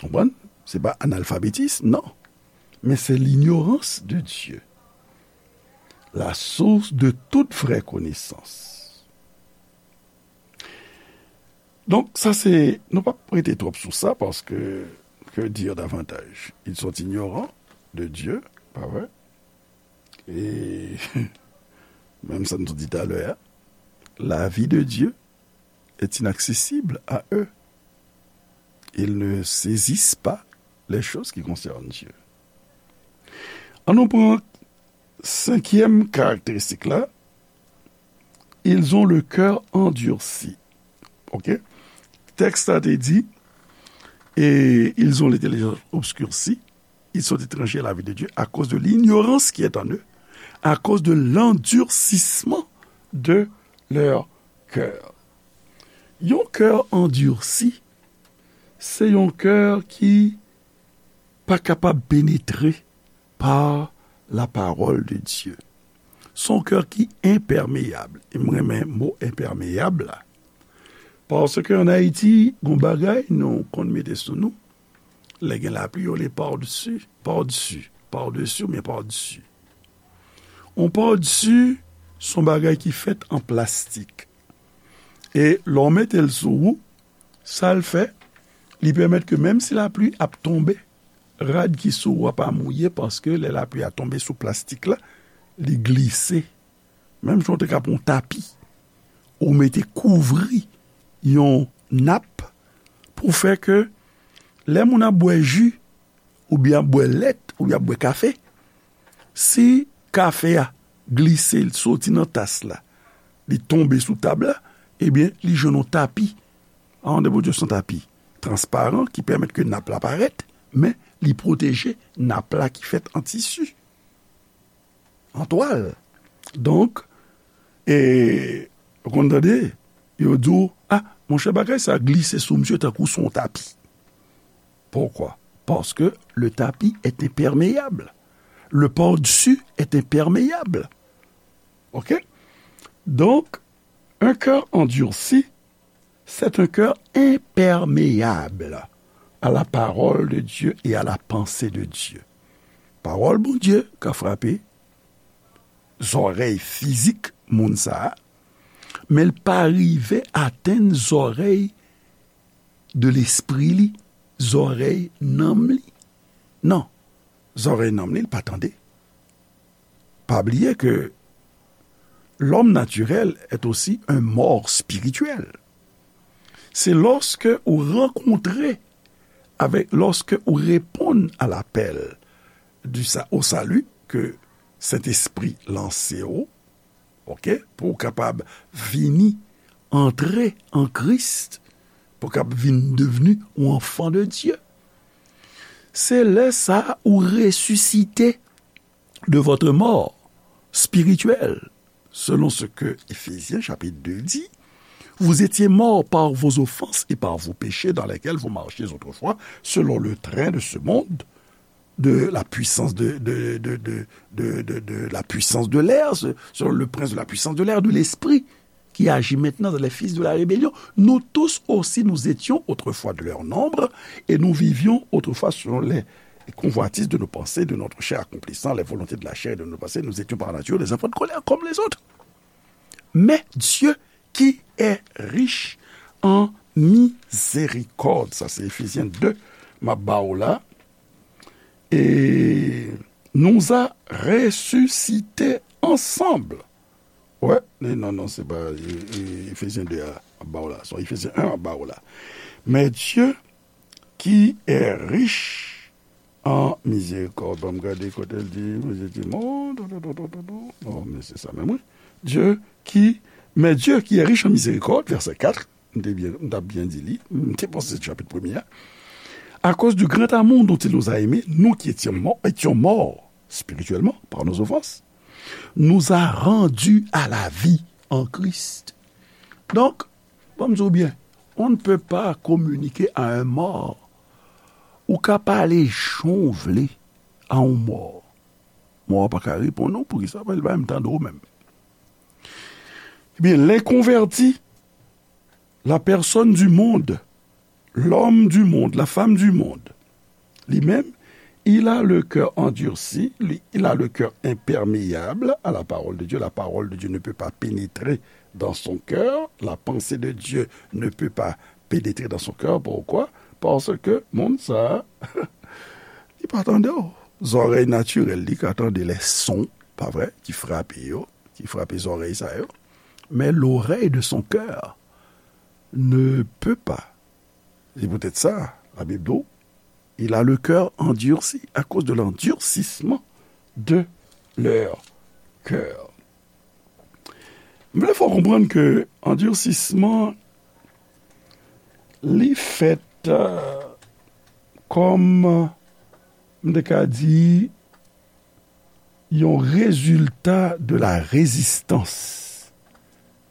Konprann? Se pa analfabetism, non. Men se l'ignorance de Dieu, la source de toute vraie connaissance. Donk, sa se, nou p ap rete twòp sou sa, paske, que dire davantage? Ils sont ignorants de Dieu, pa vre? E, menm sa nou di talè a, la vie de Dieu est inaccessible à eux. Ils ne saisissent pas les choses qui concernent Dieu. An nou pran senkyèm karakteristik la, ils ont le cœur endurci. Ok? Tèks la te di, et ils ont l'intelligence obscurcie, ils sont étrangers à la vie de Dieu à cause de l'ignorance qui est en eux, à cause de l'endurcissement de leur cœur. Yon kè andursi, se yon kè ki pa kapab penetre pa la parole de Dieu. Se yon kè ki enpèmeyab. E m renmen mo enpèmeyab la. Paske ann Ayiti, gon bagay nou konn mete sou nou. Lè gen lapli, yo rele pardesi, pardesi, pardesi oubyen pardesi. Yon pardesi, se yon bagay ki fèt an plastik. E lè w mete l sou ou, sa l fè, li pèmèt ke menm si lapli ap tonbe, rad ki sou ou a pa mouye, paske lè lapli a tonbe sou plastik la, li glise. Menm jan w te ka pran yon tapi, ou mete kouvri yon nap pou fè ke lè moun ap bwè ji, oubyen ap bwè lèt, oubyen ap bwè kafe, si kafe a glise, l soti nan tas la, li tonbe sou tab la, ebyen, li jwenn yon tapi. An de Bondye, se yon tapi transparan ki pèmèt ke nap la parèt, men li pwoteje nap la ki fèt an tisi, an twal. Donk, e, ou konn tande, yo di w, "A, monchè, bagay sa glise sou misye tankou sou yon tapi." Pourquoi? Parce que le tapis est imperméable. Le par-dessus est imperméable. OK? Donc, un cœur endurci, c'est un cœur imperméable à la parole de Dieu et à la pensée de Dieu. Pawòl Bondye ka frape zòrèy fizik moun sa a, men l pa rive atenn zòrèy de lespri li, zòrèy nanm li. Non, zòrèy nanm li, l pa tande. Pa bliye ke l'homme naturel est aussi un mort spirituel. Se lòske ou rankontre avèk, lòske ou reponn a lapèl du sa-, au salut ke Sentespri lanse w, OK, pou w kapab vini, antre an Kris, pou w kapab vin devni yon anfan de Dye. Se lè sa a ou resisite de votre mort spirituelle, selon ce que Éphésiens chapitre deux dit, vous étiez morts par vos offenses et par vos péchés dans lesquels vous marchiez autrefois selon le train de ce monde, de la puissance de, de, de, de, de, de, de la puissance de l'air, ce- selon le prince de la puissance de l'air, de l'esprit qui agit maintenant dans les fils de la rébellion. Nous tous aussi, nous étions autrefois de leur nombre, et nous vivions autrefois selon les convoitises de nos pensées, de notre chair, accomplissant les volontés de la chair et de nos pensées. Nous étions par nature des enfants de colère comme les autres. Mais Dieu, qui est riche en miséricorde, sa se Efezyen de, m ap ba w la, e nous a ressuscités ensemble. Wè, e non, non, se pa e, e, Efezyen de a m ap ba w la. Se Efezyen en m ap ba w la. Mais Dieu, qui est riche en miséricorde. Ban m gade kote l di, Bondye di, non, non, non, non, non, non. Non, men se sa menm, wi. Dieu qui, mais Dieu qui est riche en miséricorde, verset quatre, m te byen, m t ap byen di li, m te panse se chapit premye a. À cause du grand amour dont il nous a aimés, nous qui étions morts, étions morts spirituellement par nos offenses, nous a rendus à la vie en Christ. Donk, ban m di w byen, on ne peut pas communiquer à un mort. Ou ka pale jan w vle a yon mò. Mò a pa ka reponn ou, poukisa? Paske l pa menm tande w menm. Ebyen, l'inconverti, la personne du monde, l'homme du monde, la femme du monde, li menm, il a le cœur endurci, li, il a le cœur imperméable à la parole de Dieu. La parole de Dieu ne peut pas pénétrer dans son cœur. La pensée de Dieu ne peut pas pénétrer dans son cœur. Pourquoi? Paske moun sa a, li pa tande w. Zòrèy natirèl li ka tande lè son, pa vre, ki frape yo, ki frape zòrèy sa yo. Mais l'oreille de son cœur ne peut pas. C'est peut-être ça, la Bible dit, il a le cœur endurci à cause de l'endurcissement de leur cœur. M vle fè w konprann ke andirsisman, li fèt, euh, kòm, m te ka di, yon rezilta de la rezistans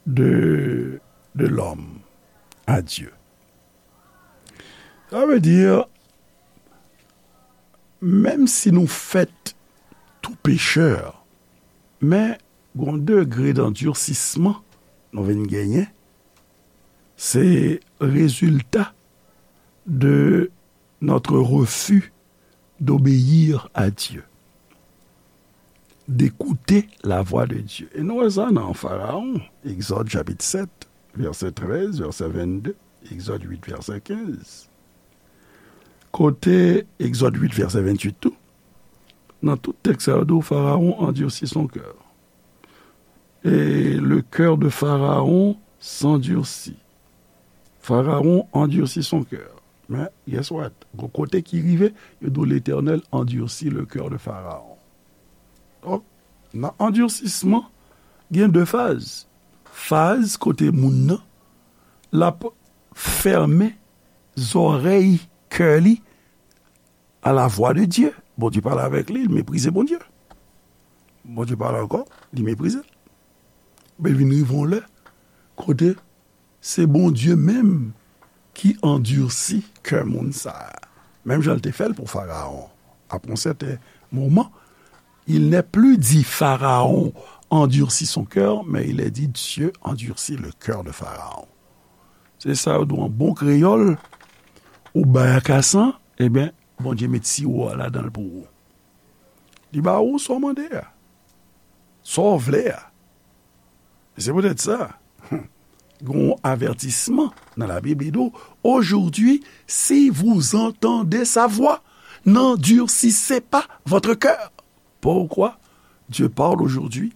de, de lòm a Dye. Sa vle di, menm si nou fèt tou pechè, men gon degre d'andirsisman nou vin genyen, se rezilta de notre refus d'obéir à Dieu, d'écouter la voix de Dieu. E nou wè sa nan Farawon, Egzòd chapit sèt, vèsè trèz, vèsè vennde, Egzòd uit, vèsè kenz. Kote Egzòd uit, vèsè venntuit tou, nan tout tèks sa yo, Farawon endurcit son cœur. Et le cœur de Pharaon s'endurcit. Pharaon endurcit son cœur. Men, guess what? Gon kote ki rive, yo di w Letènèl endurcit le cœur de Pharaon. Donk, nan andirsisman, gen de faz. faz kote moun nan, l ap fèmen zòrèy kè li à la voix de Dieu. Bondye pale avèk li, li meprize Bondye. Bondye pale ankò, li meprize l. Men l vin rive yon lè kote se Bondye menm ki andisi kè moun sa a. Menm jan l te fè l pou Farawon. Après un certain moment, il n'est plus dit Pharaon endurcit son cœur, mais il est dit Dieu endurcit le cœur de Pharaon. Se sa yo di w an bon kreyòl, ou bay akasan, ebyen, Bondye met siwo a ladan l pou ou. Li ba ou sa w mande a, sa w vle a. E se poutèt sa, gen yon avètisman nan Labib, li di w, aujourd'hui, si vous entendez sa voix, n'endurcissez pas votre cœur. Pourquoi Dieu parle aujourd'hui?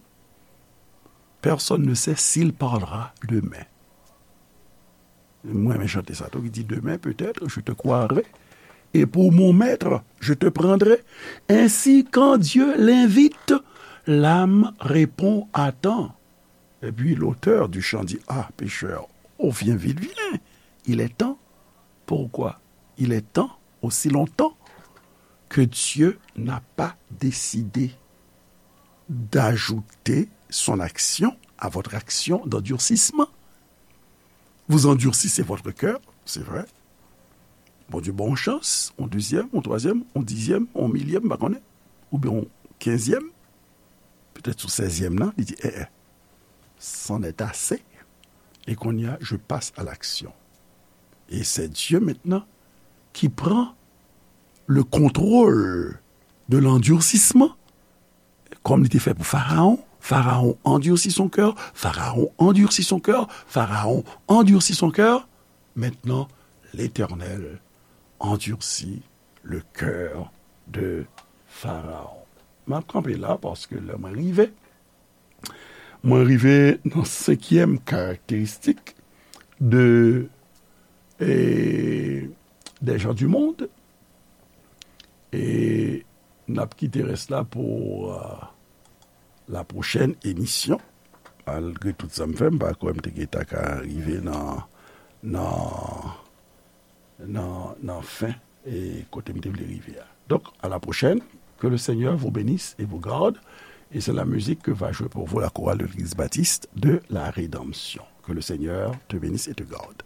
Personne ne sait s'il parlera demain. Mwen renmen chante sa tou ki di, demain peut-être je te croirai, et pour mon maître je te prendrai. Ainsi, quand Dieu l'invite, l'âme répond à temps. Et puis l'auteur du chant dit, ah, pécheur, oh, viens vite, viens. Il est temps. Pourquoi? Il est temps, aussi longtemps que Dieu n'a pas décidé d'ajouter son action à votre action d'endurcissement. Vous endurcissez votre cœur, c'est vrai. Bondye ba w yon chans, yon dezyèm, yon twazyèm, yon dizyèm, yon milyèm, m pa konnen, oubyen yon kenzyèm, petèt sou sèzyèm nan, li di, eh, eh, c'en est assez. Et kounye a, je passe à l'action. Et c'est Dieu maintenant qui prend le contrôle de l'endurcissement, comme il était fait pour Pharaon. Pharaon endurcit son cœur, Pharaon endurcit son cœur, Pharaon endurcit son cœur. Maintenant, l'Éternel endurcit le cœur de Pharaon. M ap kanpe la paske lè mwen rive, mwen rive nan senkyèm karakteristik de, e, des gens du monde. E n ap kite rès la pou, euh, la pwochèn emisyon. Malgre tout sa m fè, m pa kwè m te gentan ka rive nan, nan, nan, nan fen e kote m te vle rive a. Donc, à la prochaine. Que le Seigneur vous bénisse et vous garde. Et c'est la musique que va jouer pour vous la chorale de l'Église baptiste de la Rédemption. Que le Seigneur te bénisse et te garde.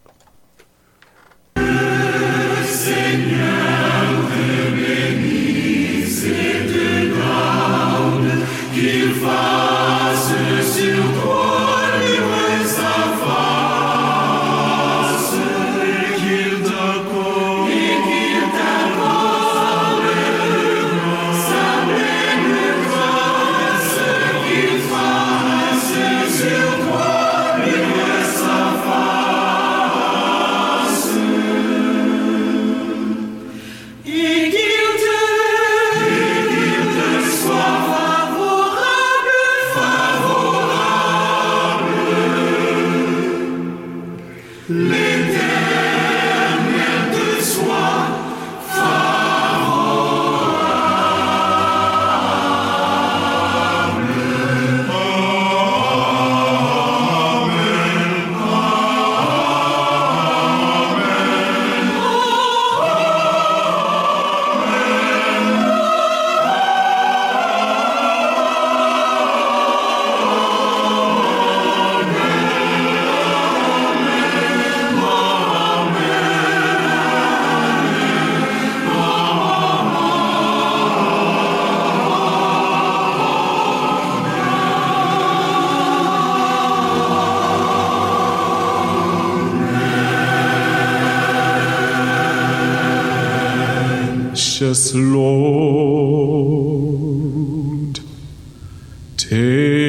Yes, Lord. Take